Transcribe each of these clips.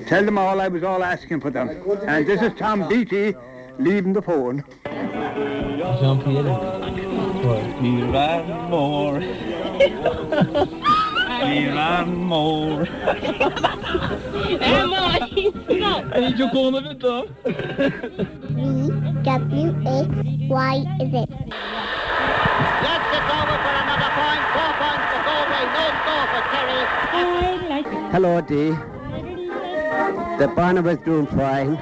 Tell them all I was all asking for them. And this is Tom Beatty leaving the phone. Jean-Pierre. Ní raibh mór. Ní raibh mór. V W X Y Z. Yes, it's over for another point. 4 points for Galway, no score for Kerry. Hello, Dee. The Barna was doing fine,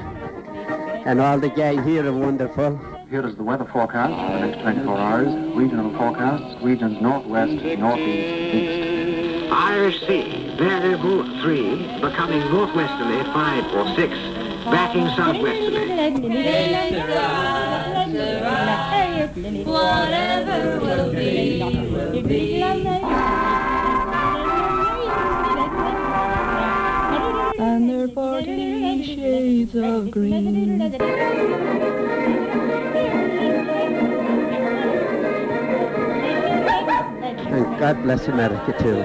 and all the gang here are wonderful. Here is the weather forecast for the next 24 hours. Regional forecasts, regions northwest, northeast, east. Irish Sea, variable 3, becoming northwesterly 5 or 6, backing southwesterly. Whatever will be, will be. And they're 40 shades of green. And God bless America too.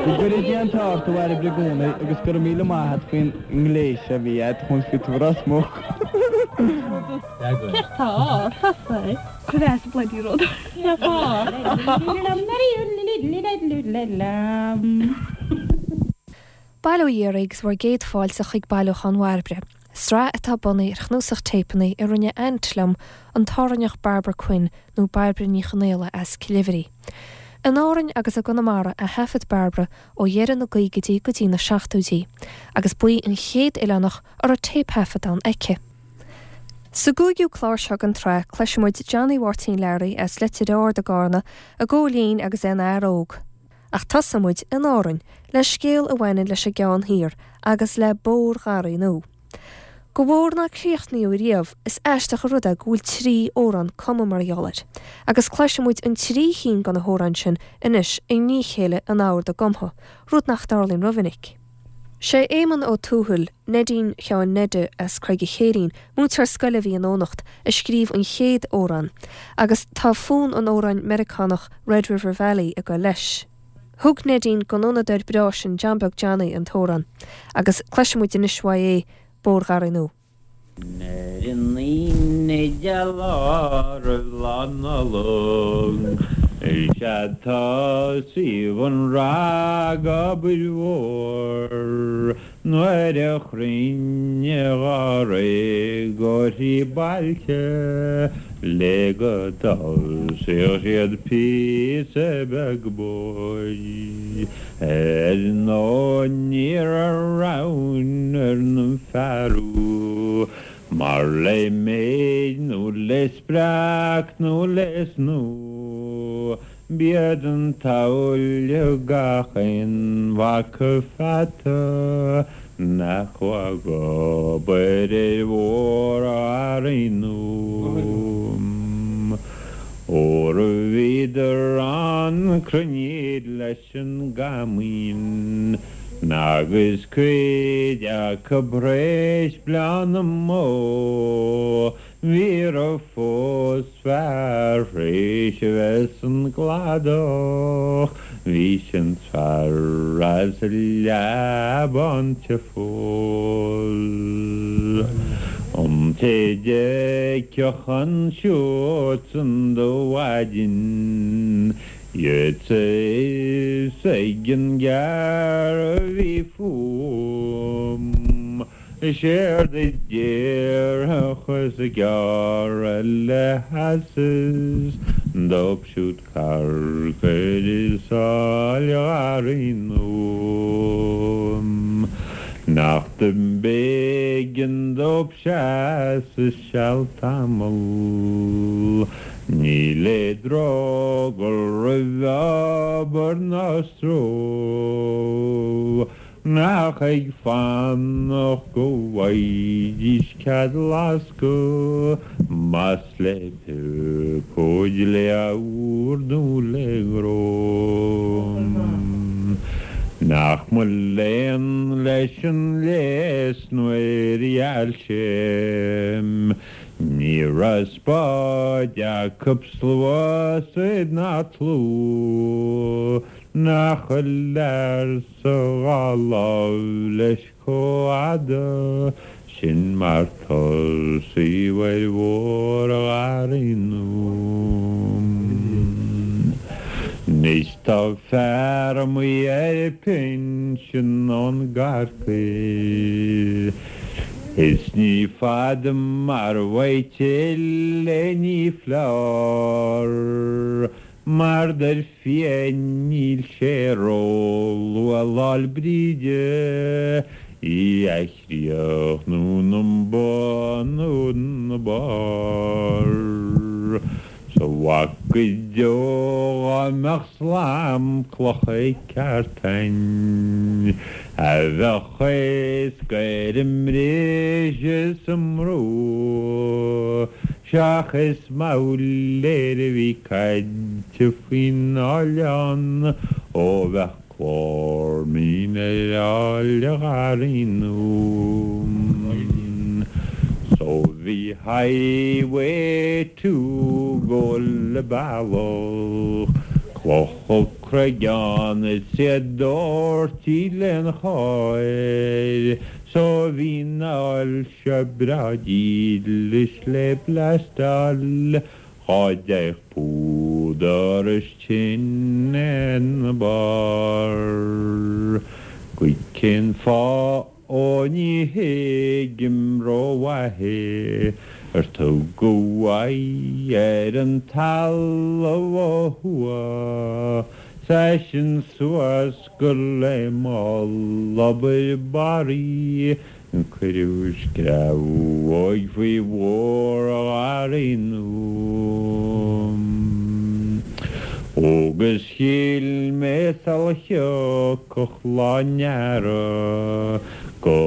Go gcuire Dia an t-ádh ort a Bhairbre i gcónaí agus go raibh míle maith a't faoin ngléas a bhí a'd chun fit Ros Muc. Bail ó Dhia oraibh agus bhur gcéad fáilte chuig Bailiúchán Bhairbre, sraith atá bunaithe ar chnuasach téipeanna a rinne aint liom, an tÁrainneach Barbara Quinn, nó Bairbre Ní Chonaola as Cill Oibhrí. In Árainn agus i gConamara a thaifead Barbara ó dheireadh na gcaogaidí go dtí na seachtóidí, agus ba í an chéad oileánach a raibh téipthaifeadán aici. Sa gcúigiú clár seo den tsraith, cloisfidh muid Johnny Mháirtín Learaí as Leitir Ard i gCarna ag gabháil fhoinn agus é ina fhear óg. Ach tosóidh muid in Árainn le scéal a bhaineann leis an gCeann Thiar agus le Bóthar Gharraí Nua. Do bhóthar nár críochnaíodh riamh, is aisteach an rud é go bhfuil 3 amhrán cumtha mar gheall air. Agus cloisfidh muid an 3 chinn de na hamhráin sin anois i ndiaidh a chéile in ord a gcumtha, rud nach dtarlaíonn rómhinic. Sé Éamonn Ó Tuathail, Neidín Sheáin Neide as Creig an Chéirín, múinteoir scoile a bhí i nDomhnach, a scríobh an chéad amhrán, agus tá fonn an amhráin Meiriceánach Red River Valley ag goil leis. Thug Neidín don fhonnadóir breá sin John Beag Johnny an t-amhrán, agus cloisfidh muid anois uaidh é, Bóthar Gharraí Nua. Ar an Aoine geal lá roimh Lá Nollag, is ea tosaíodh an ragobair mhór nuair a chruinnigh dháréag ó thrí bailte le go dtosaíodh siad píosa beag bóthair. Ar ndóigh ní raibh roghain ar na fearaibh mar le méid nó le spreac nó le snú b'iad an tsamhail gach aon mhac pheata nach raibh ag obair ar Bhóthar Gharraí Nua. Óra bhíodar ann cruinníd leis an gcaimín agus cuid acu th'réis bleá na mbó ní raibh fós fear th'réis a bheith san gcladach bhí sin fear as Leamhán te fós. An té d'fheicfeadh ansiúd san do mhaidin Gheobhadh a fhios ag an gcearr a bhí fúm. Séard a déarfadh is gearradh le heasas dóibh siúd carcair i Sáil Gharraí Nua. Nach do b'éigean dóibh seasamh seal tamall. Ní le drogall roimh obair ná stró. Nach ag fanacht go bhfaighidís cead lascadh, más le piopóid le ord nó le gnó. Nach mo léan leis an léas nuair a gheal sé. Ní raibh spád acu sluasaid ná tlú nach bhfuil lear sa dhá láimh leis chomh fhada sin mar tosaíodh ar Bhóthar Gharraí Nua. Anois tá fear amuigh ar pinsean ón gCorcaigh is ní fada mar bheidh tuilleadh ní foláir. Mar dar fia níl sé ró-luath Lá'l Bríde í a chríochnú 'na bun nó 'na barr. 'S a mhac go deo dhá mbeadh slam clocha ceart a'inn a bheadh éasca ar an mbriseadh 's an mbrú. Seachas moghlaer a bhí caite faoin oileán ó bheadh clár mín ar Fhál Gharraí Nua. So bhí Highway 2 go le bealach clocha craigheán is iad dóirtí len cháir So bhí an fhál seo breá dílis le blastáil dhá dtéadh púdar is tine ina barr. Go cén fáth ó ní thuigim rómhaith é ar tugadh aghaidh ar an talamh ó thuaidh 's eisean suas gur le mall-obair barraí Cuireadh screamhóig faoi Bhóthar Gharraí Nua. Agus shíl mé sula thiocfadh lá an earraigh go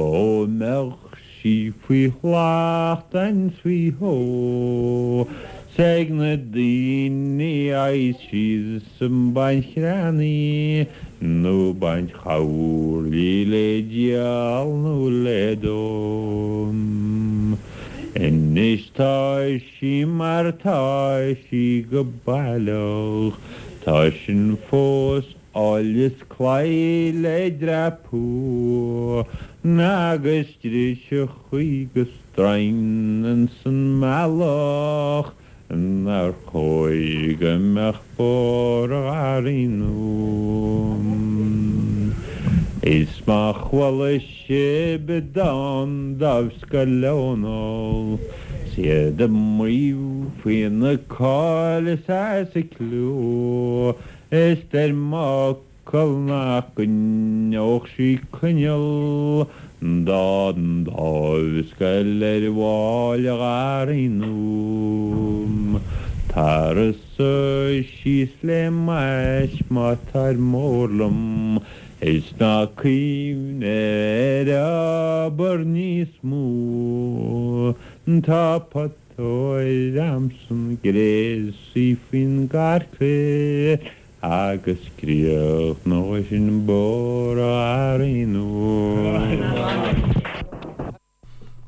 mbeadh sí faoi shlacht and faoi shó 's ag na daoine a fhaigheas síos ag baint chreannaí nó baint choirlí le díol nó le dó. Anois tá sí mar tá sí go baileach, tá sin fós áil is claí le dreapadh agus driseachaí go stroighin ins an mbealach. Nár chóir go mbeadh Bóthar Gharraí Nua? Is má chuala sibh dán Dáimhscoil Dónall 's iad ag maíomh faoina cáil is as a cliú is deir m'fhocal nach gcoinneodh sí coinneal dá ndáimhscoil ar Bhál Gharraí Nua. Tar suigh síos le m'ais má táir mór liom is ná cuimhnigh ar obair níos mó. Tá putóir a'msan gréasaí faoin gcarcair Agus críochnóidh sin Bóthar Gharraí Nua.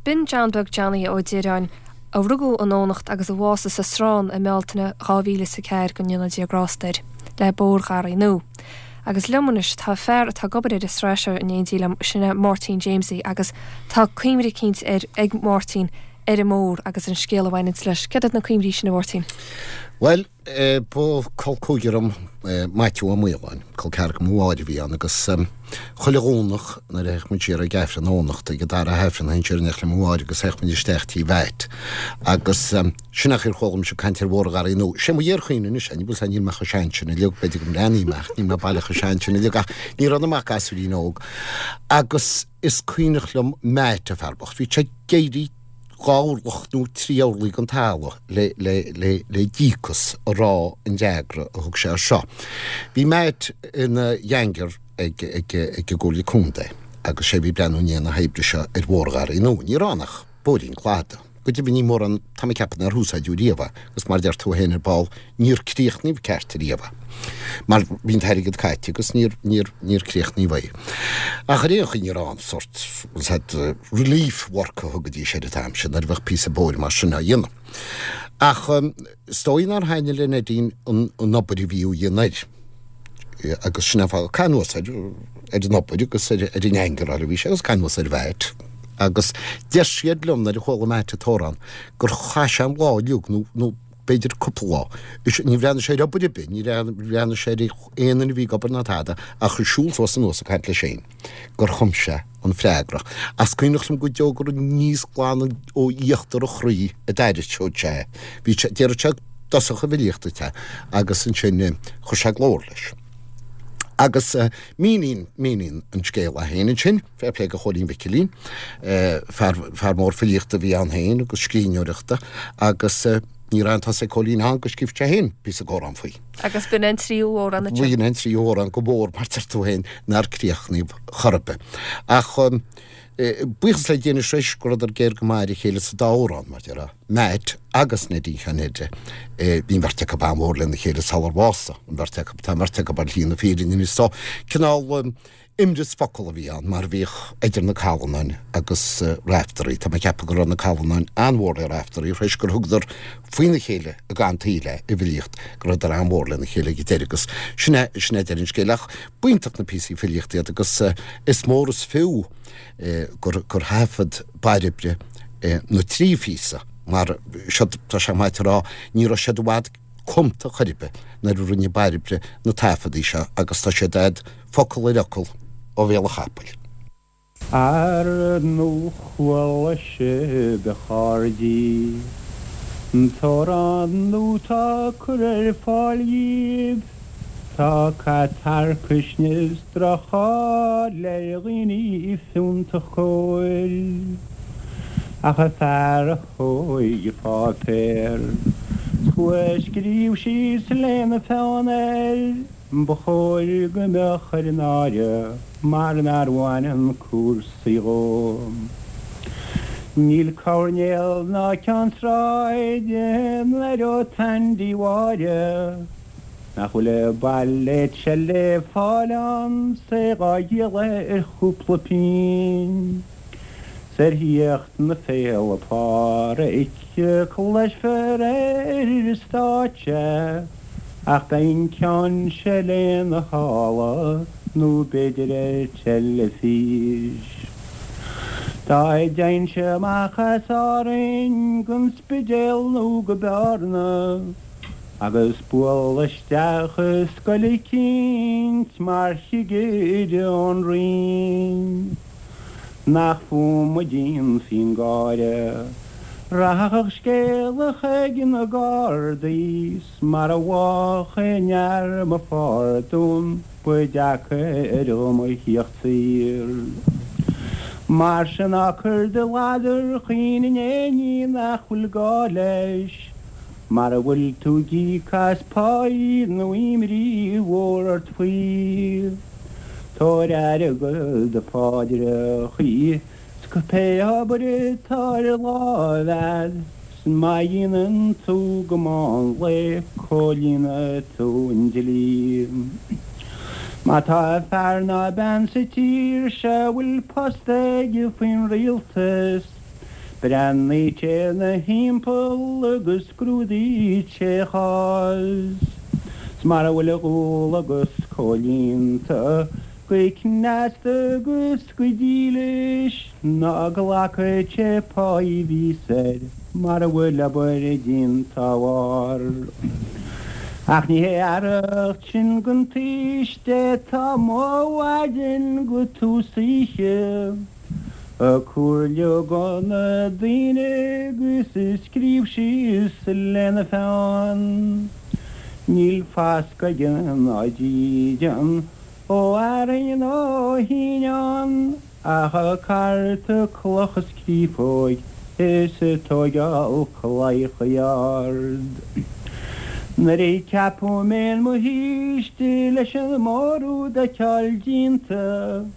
B'in John Beag Johnny Ó Direáin, a rugadh i nDomhnacht agus a bhásaigh sa Srón i mBealtaine 2004, go ndéana Dia grásta air, le Bóthar Gharraí Nua. Agus liom anois tá fear atá ag obair ar an sraith seo in éindí liom, sin é Máirtín Jamesie agus tá cuimhne eicínt ar ag Máirtín ar an mbóthar agus an scéal a bhaineanns leis. Céard iad na cuimhní sin a Mháirtín? Bhuel, Ba col cúigear dom Maitiú Ó Maoláin, col ceathracha mo mháthair a bhí ann agus chuile Dhomhnach nuair a théadh muid siar ag Aifreann Eoghanachta, ag an dara hAifreann, théinn siar in éineacht le mo mháthair agus théadh muid isteach tí Mheait agus sin é an chaoi ar chuala mise ag caint ar Bhóthar Gharraí Nua. Sé mo fhíorchuimhne anois é, ní bhfuil 's níl mé chomh sean sin uilig, b'fhéidir go mbreathnaím ach níl mé baileach chomh sean sin uilig ach ní raibh ionam ach gasúirín óg agus is cuimhneach liom Meait, an fear bocht, bhí sé ag éirí 2 orlach nó 3 orlaigh den talamh le, le, le, le díocas a rá an fhreagra a thug sé air seo. Bhí Matt ina gheaingear ag, ag, ag an gComhairle Contae agus sé a bhí ag breathnú i ndiaidh na hoibre seo ar Bhóthar Gharraí Nua. Ní raibh ann ach bóithrín cladaigh. Go deimhin ní mórán, tá mé ag ceapadh nár úsáideadh riamh é, agus mar a deir tú féin ar ball, níor críochnaíodh ceart riamh é. Mar bhí an t-airgead caite agus níor, níor, níor críochnaíodh é. Ach ar aon chaoi ní raibh aon sórt, said, relief work a thugaidís air an t-am sin nuair a bheadh píosa bóthair mar sin á dhéanamh. Ach is dóigh nár thaitnigh le Neidín an, an obair a bhí á dhéanamh air. Agus sin an fáth, caitheamh anuas air, ar an obair agus ar an angaráil a bhí sé agus caitheamh anuas ar Mhatt. Agus deir siad liom nuair a chuala Matt an t-amhrán gur chaith sé an lá uilig nó, nó b'fhéidir cúpla lá. Is ní bhreathnaigh sé ar obair ar bith, ní bhreathnaigh sé ar aon duine a bhí ag obair ná tada ach ag siúl suas anuas ag caint leis féin gur chum sé an freagra. Ach is cuimhneach liom go deo gur aníos glan ó íochtar a chroí a d'aithriseodh sé é. Bhí sé, déarfadh sé dtosach an bhfilíocht duit é agus ansin chuir sé glór leis. Agus míníonn, míníonn an scéal é féin ansin, fair play do Chóilín Mhicilín, fear, fear mór filíochta a bhí ann féin agus scríbhneoireachta agus ní raibh aon tusa ag Cóilín ann go scríobh sé féin píosa amhrán faoi. Agus b'in an tríú amhrán ansin. B'in an tríú amhrán go mór mar deir tú féin nár críochnaíodh chor ar bith. Ach buíochas le Dia anois arís go rabhadar géar go maith ar a chéile sa dá amhrán, mar déarfá, Matt agus Neidín Sheáin Ned. Bhí an bheirt acu an-mhór lena chéile sular bhásaigh an bheirt acu. Tá an bheirt acu ar shlí na fírinne anois so cineál imreas focal a bhí ann, mar a bhíodh idir na Callanáin agus Raiftearaí. Tá mé ag ceapadh go raibh na Callanáin an-mhór le Raiftearaí, tar éis gur thugadar faoina chéile i gcaitheamh an tsaoil é i bhfilíocht, go rabhadar an-mhór lena chéile ag an deireadh agus sin é, sin é deireadh an scéil. Ach b'iontach na píosaí filíochta iad agus is mór is fiú gur, gur thaifead Bairbre na trí phíosa mar siod, tá sé maith a rá, ní raibh siad i bhfad cumta chor ar bith nuair a rinne Bairbre na taifeadaí seo agus tá siad a'd focal ar fhocal ó bhéal an chapaill. Ar ndóigh chuala sibh a chairdí an t-amhrán nua 'tá curtha ar fáil dhíbh. Tá cat tarcaisne is droch-cháil ar dhaoine fiúntach cóir. Ach an fear a thóig an páipéar 's chuaigh a scríobh síos lena pheann air, ba chóir go mbeadh air náire mar nár bhaineann cúrsaí dhó. Níl coirnéal ná ceann sráide 'n-aireodh Tandy Mháire. Nach bhfuil an bailéad seo le fáil ann 's é dhá dhíol ar chúpla pingin. 'S ar thíocht na Féile Pádraig cloisfear é ar an stáitse ach beidh an ceann seo lena shála nó b'fhéidir ar teilifís. Dá dtéinnse amach as Árainn gon Spidéal nó go Bearna, Agus bualadh isteach i scoil eicínt mar chigire ón Roinn. Nach fúm a dhéanfaí an gáire. Rachadh scéala chuig na Gardaí 's mara bhfaigheadh aon fhear mo phardún ba deacair dhom a thíocht saor. Mar sin ná cuir do ladar chaoin in aon ní nach bhfuil gá leis. Mara bhfuil tú ag íoc as páí nó imní mhór ort faoi, tabhair aire do do pháidreachaí 's pé obair atá ar láimh a'd, 's má dhéanann tú go meán lae comhlíonfaidh tú an dlí. Má tá fear ná bean sa tír seo a bhfuil post aige faoin rialtas, Breathnaíonn sé ina thimpeall agus scrúdaíonn sé a chás. 'S mara bhfuil a dhualgas comhlíonta go cneasta agus go dílis, ná glacadh sé páí a bhíos air mara bhfuil obair déanta dá bharr. Ach ní hé fhearacht sin gon tsaoiste atá amuigh ó mhaidin go tús oíche. Ag comhairliú go na daoine agus ag scríobh síos lena pheann. Níl fascadh aige ná dídean ó fhearthainn nó ó shíneán ach ag cartadh cloch is créafóg is ag tóigeáil claíochaí ard. Nuair a ceapadh mé in mo shaoiste leis an mórúd a fheiceáil déanta.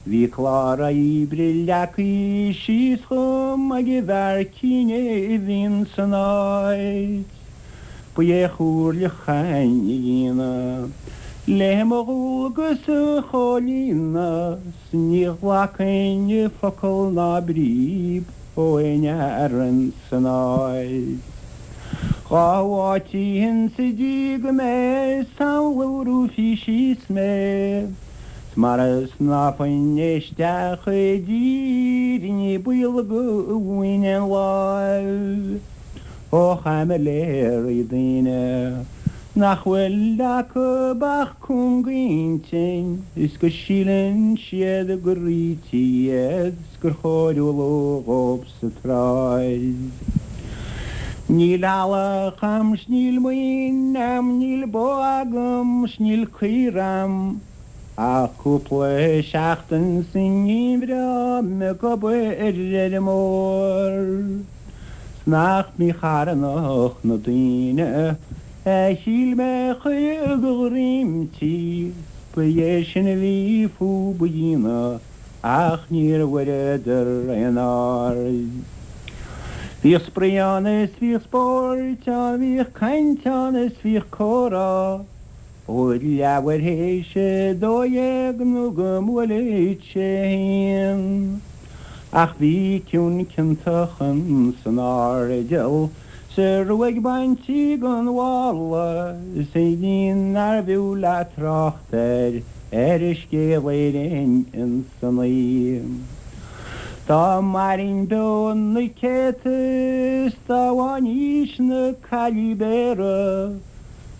Bhí clár oibre leagtha síos dhom ag an bhfear cinn a bhí san áit. Ba é a chomhairle chain a dhéanamh le mo dhualgas a chomhlíonadh 's ní ghlacfainn focal ná bríb ó aon fhear ins an áit. Dhá áitínn sa dtír go mbeidh samhlófaí síos mé. 'S mara snámhfainn isteach i dtír ní baol go bhfaighinn aon láimh ó chaimiléirí daoine nach bhfuil acu ach cúngintinn is go síleann siad gur ríthe iad 's gur chóir umhlú dhób sa tsráid. Níl eallach a'm 's níl maoin a'm níl bó agam 's níl caor a'm ach cúpla seachtain sa ngeimhreadh ag obair ar fheirmeoir 's nach mícharthanach na daoine a shíl mé a chuir de dhroim tí 's ba é sin a bhí fúb a dhéanamh ach níor bhfuaireadar aon aird. Bhíodh spraoi ann is bhíodh spóirt ann, bhíodh caint ann is bhíodh comhrá, ó leathuair théis a 12 nó go mbuaileadh sé a haon. Ach bhí ciúin ciontach ins an airdeall 's a ruaig bainte gon mhála is a iníon nárbh fhiú leat trácht air ar a scéal Éirinn ins an oíche. Dá mairfinn beo na céadta is dá bhfaighinn aois na caillí Béara,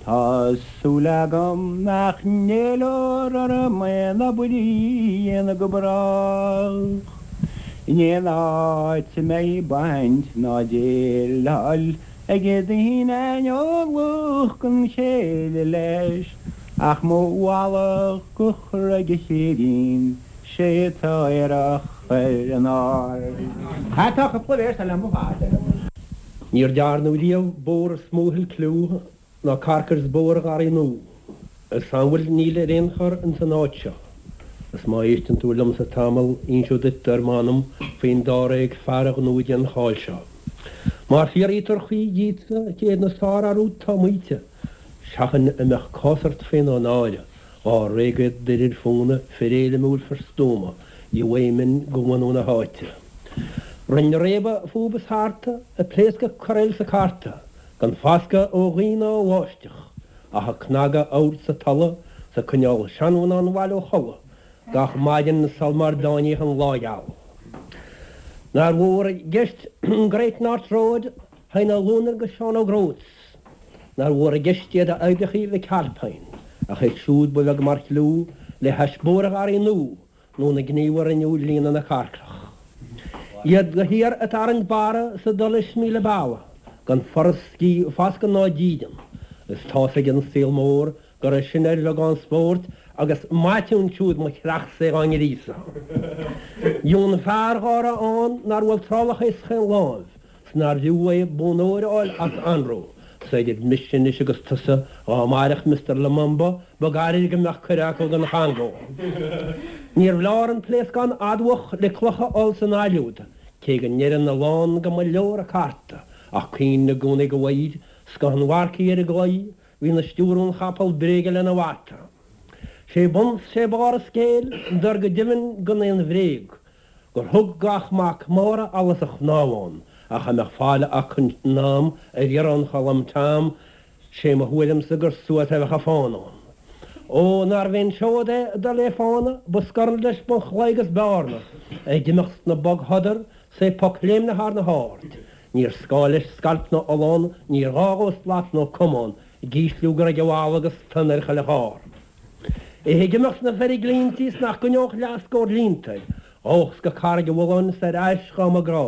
tá súil agam nach n-éileofar orm aon obair a dhéanamh go brách in aon áit a mbeidh baint ná déileáil ag daoine aineolach gan chéile leis ach mo mhallacht go chur ag a chéirín sé atá aerach ar an ard. Tá cúpla véarsa liom ar fad. Níor dearnadh riamh bóthar is mó a thuill cliú ná carcair is Bóthar Gharraí Nua. A samhail níl ar aon chor ins an áit seo. Is má éisteann tú liomsa tamall inseod duit ar m'anam faoin dáréag fear a ghnóthaigh an cháil seo. Má fiafraítear choíche díotsa cé hiad na sárfhear úd tá maíte, seachain a mbeadh cás ort féin ó náire, dháréag iad d'fhir ar fóna, fir éirimiúil, fir stuama, gheobhaidh minn go bhunú na háite. Rinne réabadh fúb is tharta, ag pléascadh corraíl 's ag cartadh, Gan foscadh ó ghaoth ná ó bháisteach, ach ag cnagadh abhairt 's ag tolladh 's ag coinneáil seanmhná an bhaile ó chodladh gach maidin sul mar dtáiníodh an lá geal. Nár mhór i gceist an Great North Road Heine Luanar 'gus Seán Óg Rhodes, nár mhór i gceist iad a oibreachaí Mhic Alpine, ach iad siúd ba bheag mar chliú le hais Bóthar Gharraí Nua nó na gníomha a rinneadh líonadh na carcrach. Iad de shíor ag tarraingt barra 's ag dul leis míle bealach, gan foras, foscadh ná dídean, is tá's ag an saol mór go raibh sin ar bheagán spóirt agus maite ansiúd mo chreachsa é dhá ngríosadh. Dheamhan fear dhá raibh ann nár bhuail trálach é chaon láimh, 's nár bhfiú é bonn óir a fháil as anró, 's idir mise anois agus tusa, dhá mairfeadh Mister Lumumba, ba gairid go mbeadh cuireadh acu don Chongó. Níorbh leor an pléascán admhach le cloch a fháil san ailliúd, cé go ndeireann a lán go mba leor an cárta, ach cuimhne i gcónaí go bhfaighid scoth an mharcaigh ar an gclaí, bhí 'na stiúradh an chapall bréige lena bhata. Sé bun 's sé barr an scéil, dar go deimhin gan aon bhréag, gur thug gach mac Mára allas a chnámh ann, ach a mbeadh fáil acu in am ar iarraidh an Cholm Tom, sé mo thuairimse gur suas a bheadh a fán ann. Ó, nárbh aon seod é dul lé fána, ba scorn leis bun chlaí agus bearna, ag imeacht sna bogshodar, 's é poc léimnithe thar na haird. Níor scáth leis scailp ná ollán, níor ghá dhó slat nó camán, ag ísliú gur ag an bhfalla agus tonn ar chuile charr. É ag imeacht sna feirglinntí 's nach gcoinneodh leathscór línte air, ghabhfadh go Carraig an Bhulláin 's ar ais dhá mba grá.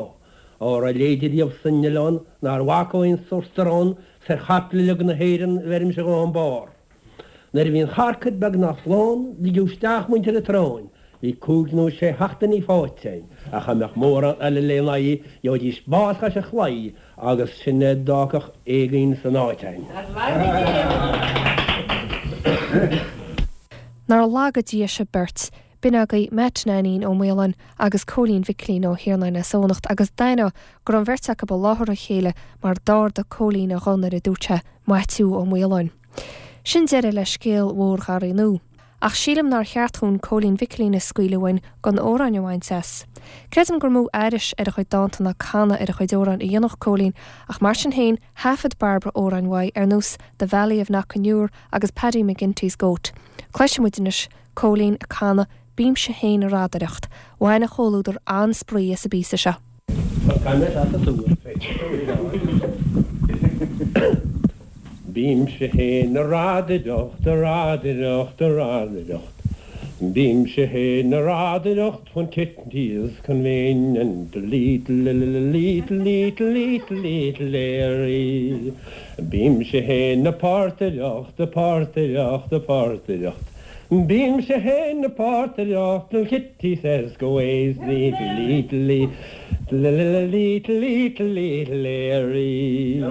Á raibh leide riamh san oileán nár bhac ó aon sórt arán 's ar chaiple uilig na hÉireann bheirimse dhó an barr. Nuair a bhí an charcair beagnach lán, ligeadh isteach muintir an tSrutháin. Bhí cúig nó sé sheachtainí faighte againn, ach dá mbeadh mórán eile lena aghaidh, gheobhaidís bás chois an chlaí agus sin é d'fhágfadh éagaoin san áit againn. Nár laga Dia sibh beirt. B'in agaibh Matt Nainín Ó Maoláin agus Cóilín Mhicilín Ó hIarnáin as Eoghanacht agus d'aithneofá go raibh an bheirt acu i láthair a chéile mar d'ardaigh Cóilín a ghuth nuair a dúirt sé Maitiú Ó Maoláin. Sin deireadh le scéal mhór Gharraí Nua. Ach sílim nár cheart dhúinn Cóilín Mhicilín a scaoileadh uainn gan amhráin a bhaint as. Creidim gur mó aithris ar a chuid dánta ná canadh ar a chuid amhrán a dhéanfadh Cóilín ach mar sin féin thaifead Bairbre amhráin uaidh ar nós The Valley of Knockanure agus Paddy McGinty's Goat. Cloisfidh muid anois Cóilín ag canadh Bímse Féin a Radaireacht. Bhain an chomhluadar an-spraoi as an bpíosa seo. Bímse fhéin a radaireacht, a radaireacht, a radaireacht. Bímse fhéin a radaireacht when Kitty is convenient, little, little, little, little, little Larry. Bímse fhéin a portaireacht, a portaireacht, a portaireacht. Bímse fhéin a portaireacht till Kitty says go ways, little, little, little. Little, little, little Larry.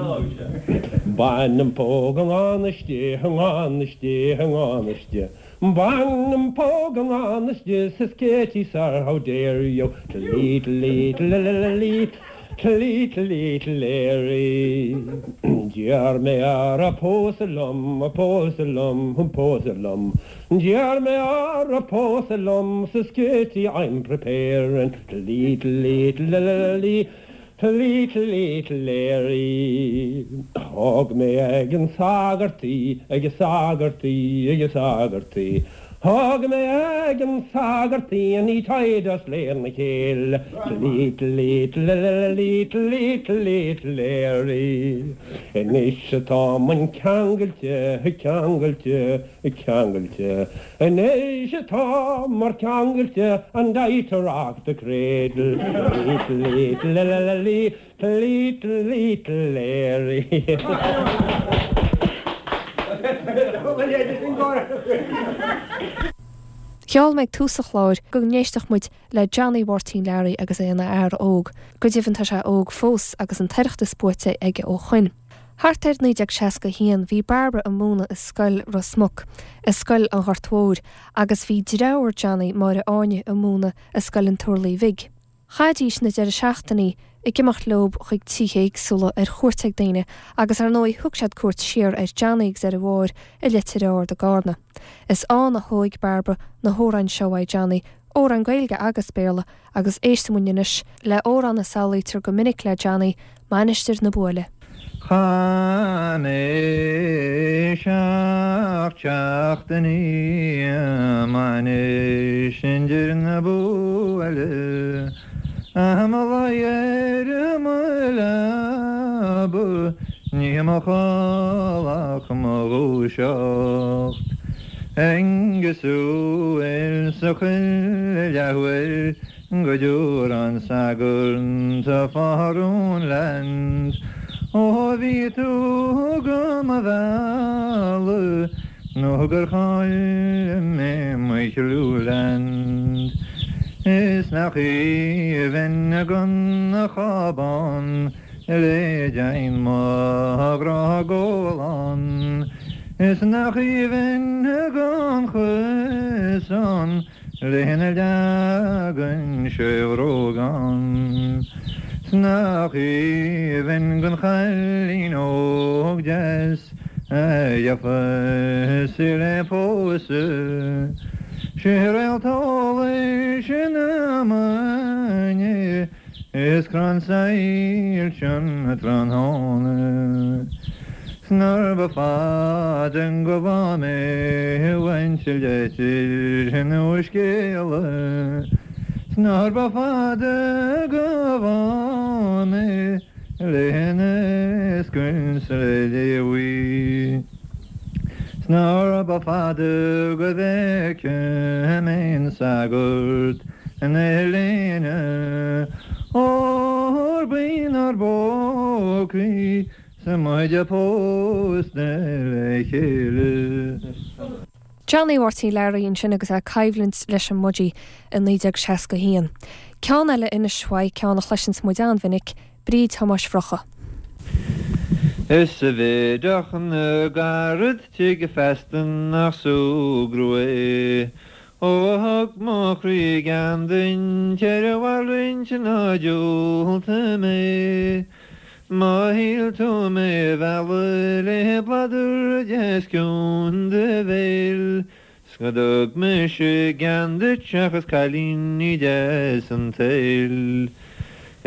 Bain an póg i ngan fhios di, i ngan fhios di, i ngan fhios di. Bain an póg i ngan fhios di, says Katie sir, how dare you. Little, little, little, little, little Larry. D'iarr mé uirthi pósadh liom, pósadh liom, pósadh liom. D'iarr mé uirthi pósadh liom says Katie I'm preparing little little little little little Larry. Thóg mé ag an sagart í, ag an sagart í, ag an sagart í. Thóg mé ag an sagart í and he tied us lena chéile little little little little little Larry. Anois atá muid ceangailte, ceangailte, Ceangailte anois atámar ceangailte and I to rock the cradle little little little little little Larry. Gheall mé ag tús an chláir go n-éistfeadh muid le Johnny Mháirtín Learaí agus é ina fhear óg. Go deimhin tá sé óg fós agus an tOireachtas buaite aige ó shoin. Thart ar 1961 bhí Bairbre ag múineadh i scoil Ros Muc, i scoil an Ghoirt Mhóir, agus bhí deartháir Johnny, Máire Áine, ag múineadh i scoil an Turlaigh Bhig. Chaithidís na deireadh seachtainí ag imeacht leob chuig tithe éagsúla ar chuairt ag daoine agus ar ndóigh thug siad cuairt siar ar Johnny agus ar a Mháire i Leitir Ard i gCarna. Is ann a thóig Bairbre na hamhráin seo uaidh Johnny, amhráin Gaeilge agus Béarla, Agus éistfidh muid anois le amhrán a samhlaítear go minic le Johnny, Mainistir na Buaile. Chaith mé seacht seachtainí i Mainistir na Buaile, mo luí ar mo leaba, ní mo chodladh ach mo dhúiseacht. Aengus ins a chuile leathuair go dtabharfadh an sagart a phardún leat. Ó bhí tú go mo mhealladh nó gur chaill mé mo chliú leat. Is nach aoibhinn gan chábán Le dein mo ghrá gólán Is nach aoibhinn gan chuasán Lena leagann sé bhrógán 'S nach aoibhinn gan chailín óg deas A gheofas í le pósadh 'Sí réalt eolais na maidine Is crann soilse an tráthnóna 'S nár ba fada go bhfaighidh mé uainse leitir nó scéala 'S nár ba fada go bhfaighidh mé lena scoilt le léamh 'S nár ba fada go bhfeicfidh mé an sagart ina léine, óir b'inár bpócaí 's muid pósta le chéile. Johnny Mháirtín Learaí ansin agus é ag coimhlint leis an mBudgie i 1961. Ceann eile anois uaidh, ceann a chloiseanns muid an-mhinic, Bríd Thomáis Bhrocha. Is a bheideach na gcarad tigh feasta nach súgradh é. Ó a thug mo chroí gean duit ar a mhalrait ná diúltaigh mé. Má shíl tú mé a mhealladh le bladar deas ciúin do bhéil, 's go dtug mise gean duit seachas cailíní deas an tsaoil.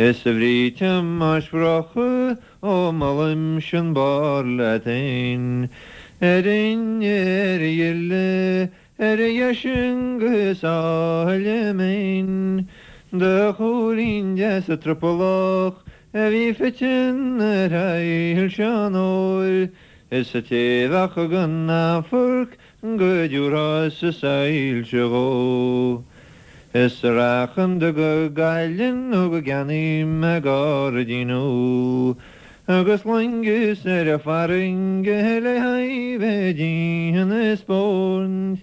Is a Bhríd Thomáis Bhrocha, ó molaimse an barr leat fhéin, ar fhinne ar a ghile, Ar a dheis agus áille mín, Do chúilín deas trupallach a bhí fite ar shoilse an óir, Is a té bheadh gan amharc go dtabharfá-sa soilse dhó. Is a rachainn go Gaillimh nó go gceannaím mé gairdín úll, Agus loingeas ar an bhfarraige le haghaidh bheith ag spóirt.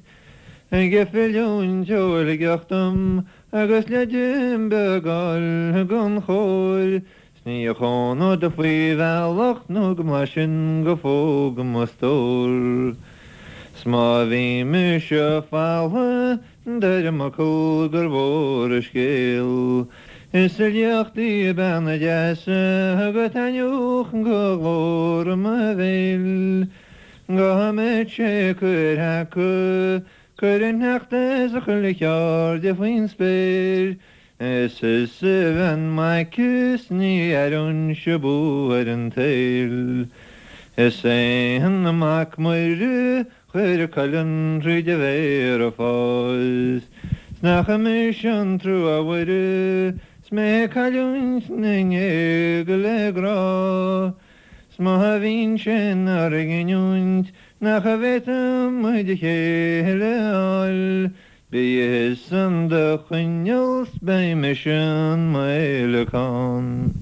Ag filiúint ó Shligeach dom agus leid beag fháil gon chóir, 's ní chónód faoi bhealach nó go mblaisfinn go fógh mo stór. 'S má bhí mise faltha Deirim fhocal gur mhór an scéal. Is liacht í bean deas go taitneodh go glór mo bhéil. Go mbeadh sé curtha acu, cuir an sneachta is a chuile cheird faoin spéir. Is is a bhean mhaith is ní aireoinnse bua ar an tsaol. Is é an Mac Muire Chuir a colainn thríd a mhéar a fás. 'S nach mise an trua a Mhuire 's mé ag cailliúint na ngéaga le grá. 'S má bhíonn sé inár gcinniúint nach bhféadfaidh muid a chéile a fháil, Bí thusa in do choinneal 's beidh mise in m'fhéileacán.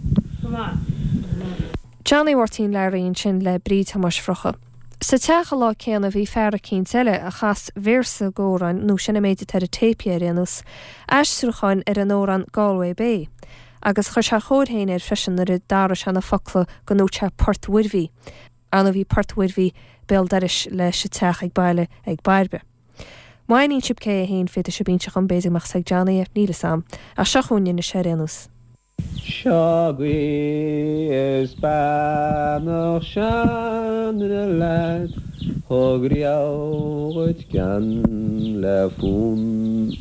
Johnny Mháirtín Learaí ansin le Bríd Thomáis Bhrocha. Sa teach an lá céanna bhí fear eicínt eile a chas véarsa d'amhrán, nó sin an méid atá ar an téip ar aon nós, aistriúcháin ar an amhrán Galway Bay. Agus chuir sé a chóir féin air freisin nuair a d'athraigh sé na focla go ndúirt sé Port Mhuirbhigh. Ar ndóigh bhí Port Mhuirbhigh béal dorais leis an teach ag baile ag Bairbre. Má aithníonn sibh cé é féin, féadfaidh sibh inse dhom, b'fhéidir go mbeadh 's ag Johnny é, níl 'fhios a'm. Ach seo chugainn anois é ar aon nós. Seo agaibh is beannacht seanduine leat thug riamh dhuit gean le fonn.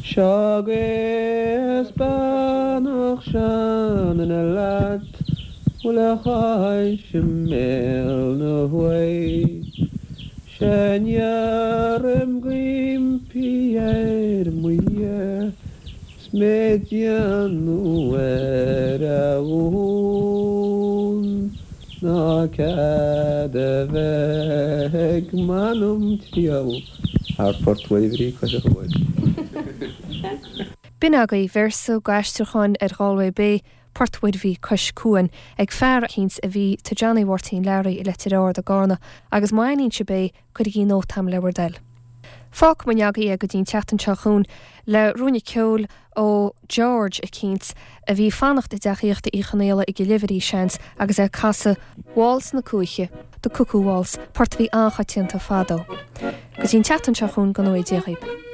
Seo agaibh is beannacht seanduine leat bhfuil a chois i mbéal na huaighe. Sea n-iarraim go impí ar mo Dhia 's mé ag déanamh ar a dhún ná cead a bheith ag m'anam triall thar Phort Mhuirbhrí cois an Chuain. B'in agaibh véarsa d'aistriúchán ar Ghalway Bay, Port Mhuirbhí cois cuain, ag fear eicínt a bhí tigh Johnny Mháirtín Learaí i Leitir Ard i gCarna, agus má aithníonn sibh é, cuirigí nóta a'm le bhur dtoil. Fágfaidh muid agaibh é go dtí an tseachtain seo chugainn le ruainne ceoil ó George eicínt a bhí ag fanacht i dteach aíochta Uí Chonaola i gCill Uimhir, seans, agus é ag casadh Waltz na Cuaiche, The Cuckoo Waltz, port a bhí an-choitianta fadó. Go dtí an tseachtain seo chugainn, go ngnóthaí Dia dhaoib.